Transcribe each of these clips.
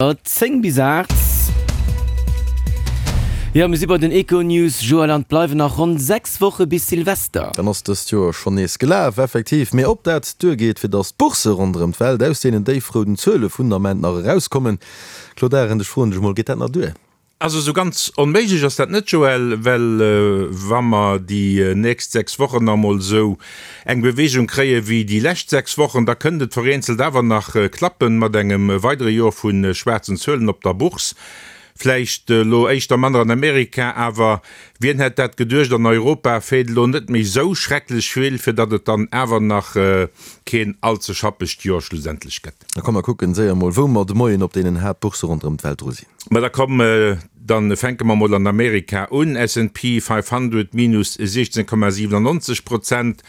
10 bis 8. Jo, mir si bei den Econews. Joël, an et bleiwen nach ronn 6 Woche bis Silvester. Dann ass dëst Joer schonn nees gelaf, effektiv. Mee ob dat duergeet, fir datt d'Boursse ronderëm d'Welt aus deenen déifrouden Zuele vun Ament nach erauskommen? Claude Arend, ech froen dech emol, geet dat nach duer? Also esou ganz onméiglech ass dat net, Joël, well wa mer déi nächst 6 Wochen nach emol esou eng Beweegung kréie wéi déi lescht 6 Wochen, da kënnt et vereenzelt awer nach klappen mat engem weidere Joer vu schwaarzen Zuelen op der Bourse. Vläicht elo éischter manner an Amerika, awer wien hätt dat geduecht, an Europa feelt elo net méi esou schrecklech vill, fir datt et dann awer nach keen all ze schappegt Joer schlussendlech gëtt. Da komm mer kucken séier mol wou mer de Moien op deenen Haaptbourse ronderëm d'Welt dru sinn. Ma da komm, dann fänke mer mol an Amerika un, S&P 500 minus 16,97 Prozent,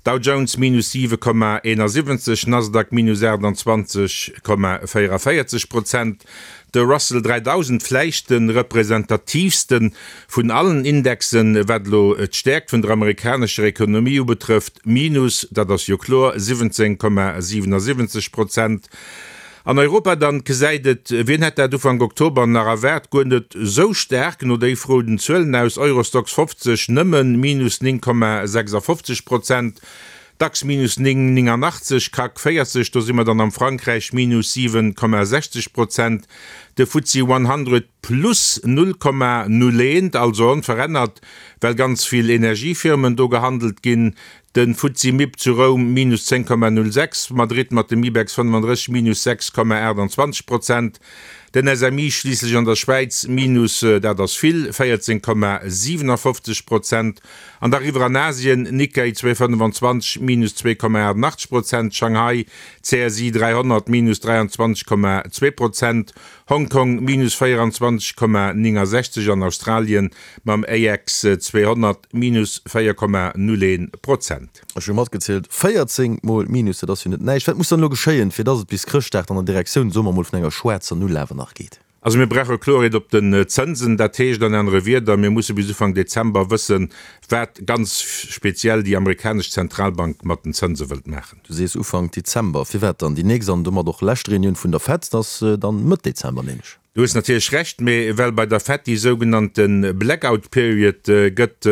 Dow Jones minus 7,71, Nasdaq minus 28,44 Prozent, De Russell 3000, vläicht de representatiivste vun allen Indexen, wat elo d'Stäerkt vun der amerikanescher Ekonomie ubetrëfft, minus, dat ass jo kloer, 17,77 Prozent. An Europa dann gesäit et, wien hätt dat Ufank Oktober nach erwaart, guer net esou staark no déifrouden Zuelen aus, Eurostoxx 50 nëmme minus 9,56 Prozent, Dax minus 9,89, CAC 40, do si mer dann am Frankräich, minus 7,60 Prozent, de FTSE 100 plus 0,01, also onverännert, well ganz vill Energiefirmen do gehandelt ginn, de FTSE Mib zu Roum minus 10,06, Madrid mat dem Ibex 35 minus 6,28 Prozent, den SMI schliisslech an der Schwäiz minus, dat ass vill, 14,57 Prozent. An da riwwer an Asien, Nikkei 225 minus 2,88 Prozent, Shanghai CSI 300 minus 23,2 Prozent, Hong Kong minus 24,69 an Australien mam AX 200 minus 4,01 Prozent. Ech hu matgezielt, 14 mol Minus, dat ass jo net näischt. Wat muss dann elo geschéien, fir dass et bis Chrëschtdag dann an Direktioun, soe mer mol, vun enger schwaarzer Null awer nach geet? Also mir brauche Kloerheet op den Zënsen. Dat heescht an anere Wierder, mir musse bis Ufank Dezember wëssen, wat ganz speziell déi amerikanesch Zentralbank mat den Zënse wëllt maachen. Du sees Ufank Dezember. Firwat dann? Déi nächst an domat och lescht Reunioun vun der Fed ass dann Mëtt Dezember, nämlech. Du hues natierlech Recht, mee well bei der Fed déi sougenannte Blackout Period gëtt,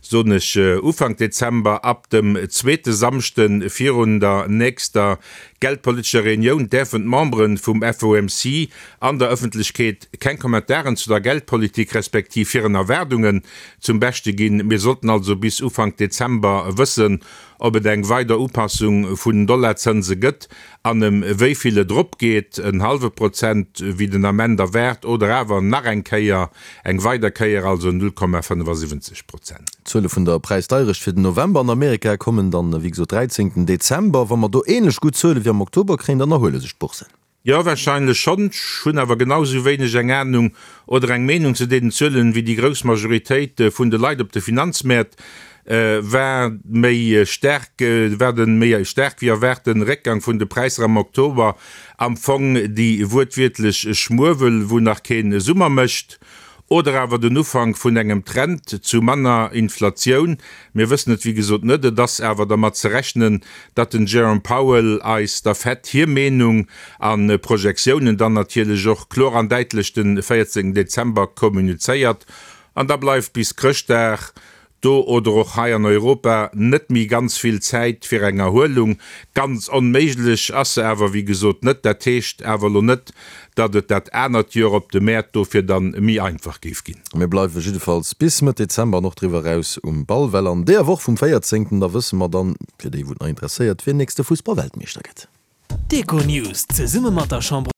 soen ech Ufank Dezember, ab dem zweete Samschde virun der nächster geldpolitescher Reunioun däerfen d'Membere vum FOMC an der Ëffentlechkeet keng Kommentaren zu der Geldpolitik respektiv hiren Erwaardungen zum Beschte ginn. Mir sollten also bis Ufank Dezember wëssen, ob et eng weider Upassung vun den Dollarzënse gëtt an ëm wéi vill et eropgeet, en hallwe Prozent wéi den Ament erwaart oder awer nach eng Kéier, eng weider Kéier, also 0,75 Prozent. D'Zuele vun der Präisdeierecht fir den November an Amerika kommen dann, wéi gesot, 13 Dezember. Wa mer do änlech gutt Zuele wéi am Oktober kréien, dann erhuele sech d'Boursen. Jo, wahrscheinlech schonn. Ech hunn awer genau esou wéineg eng Ahnung oder eng Meenung zu deenen Zuelen wéi déi grouss Majoritéit vun de Leit op de Finanzmäert. War méi staark, war de méi staark wéi erwaarten Réckgang vun de Präisser am Oktober am Fong déi wuertwiertlech Schmuewel wou nach keen Summer mécht? Oder awer den Ufank vun engem Trend zu manner Inflatioun? Mir wëssen et wéi gesot net. Et ass awer dermat ze rechnen, datt den Jerome Powell eis der Fed hir Meenung a Projektiounen dann natierlech och kloer an däitlech den 14 Dezember kommunizéiert. An da bleift bis Chrëschtdag do oder och hei an Europa net méi ganz vill Zäit fir eng Erhuelung. Ganz onméiglech ass se awer wéi gesot net. Dat heescht awer elo net, datt et dat anert Joer op de Mäert dofir dann méi einfach géif ginn. Mir bleiwe jiddefalls bis Mëtt Dezember an och driwwer eraus um Ball, well an deeër Woch vum 14. Da wësse mer dann, fir déi wou et nach interesséiert, wien nächste Fussballweltmeeschter gëtt. D'Econews zesumme mat der Chambre.